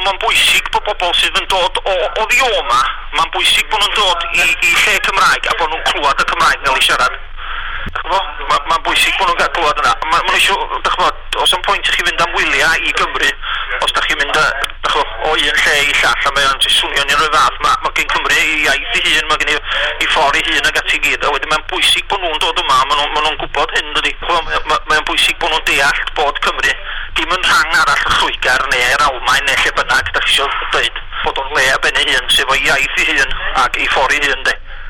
Mae'n bwysig bod bobl sydd yn dod o oddi o 'ma, mae'n bwysig bod nhw'n dod i lle Cymraeg a bod nhw'n clywed y Cymraeg gael ei siarad. Mae'n ma bwysig bod nhw'n cael clywed yna. Mae ma eisiau, dych ch'mod, oes 'am pwynt i chi fynd am wyliau i Gymru os da chi'n mynd dych ch'mo, o un lle i llall a mae o'n jyst swnio'n un o'r fath. Mae ma gen Cymru ei iaith ei hun, mae gen i ffordd ei hun ag ati i gyd. A wedyn mae'n bwysig bod nhw'n dod yma, maen nhw'n ma nhw gwybod hyn, dydy. Mae ma, mae o'n bwysig bod nhw'n deall bod Cymru dim yn rhan arall o Lloegr neu'r Almaen neu lle bynnag da chi eisiau dweud, bod o'n le ar ben ei hun, sef o'i iaith ei hun ac ei ffordd ei hun, de.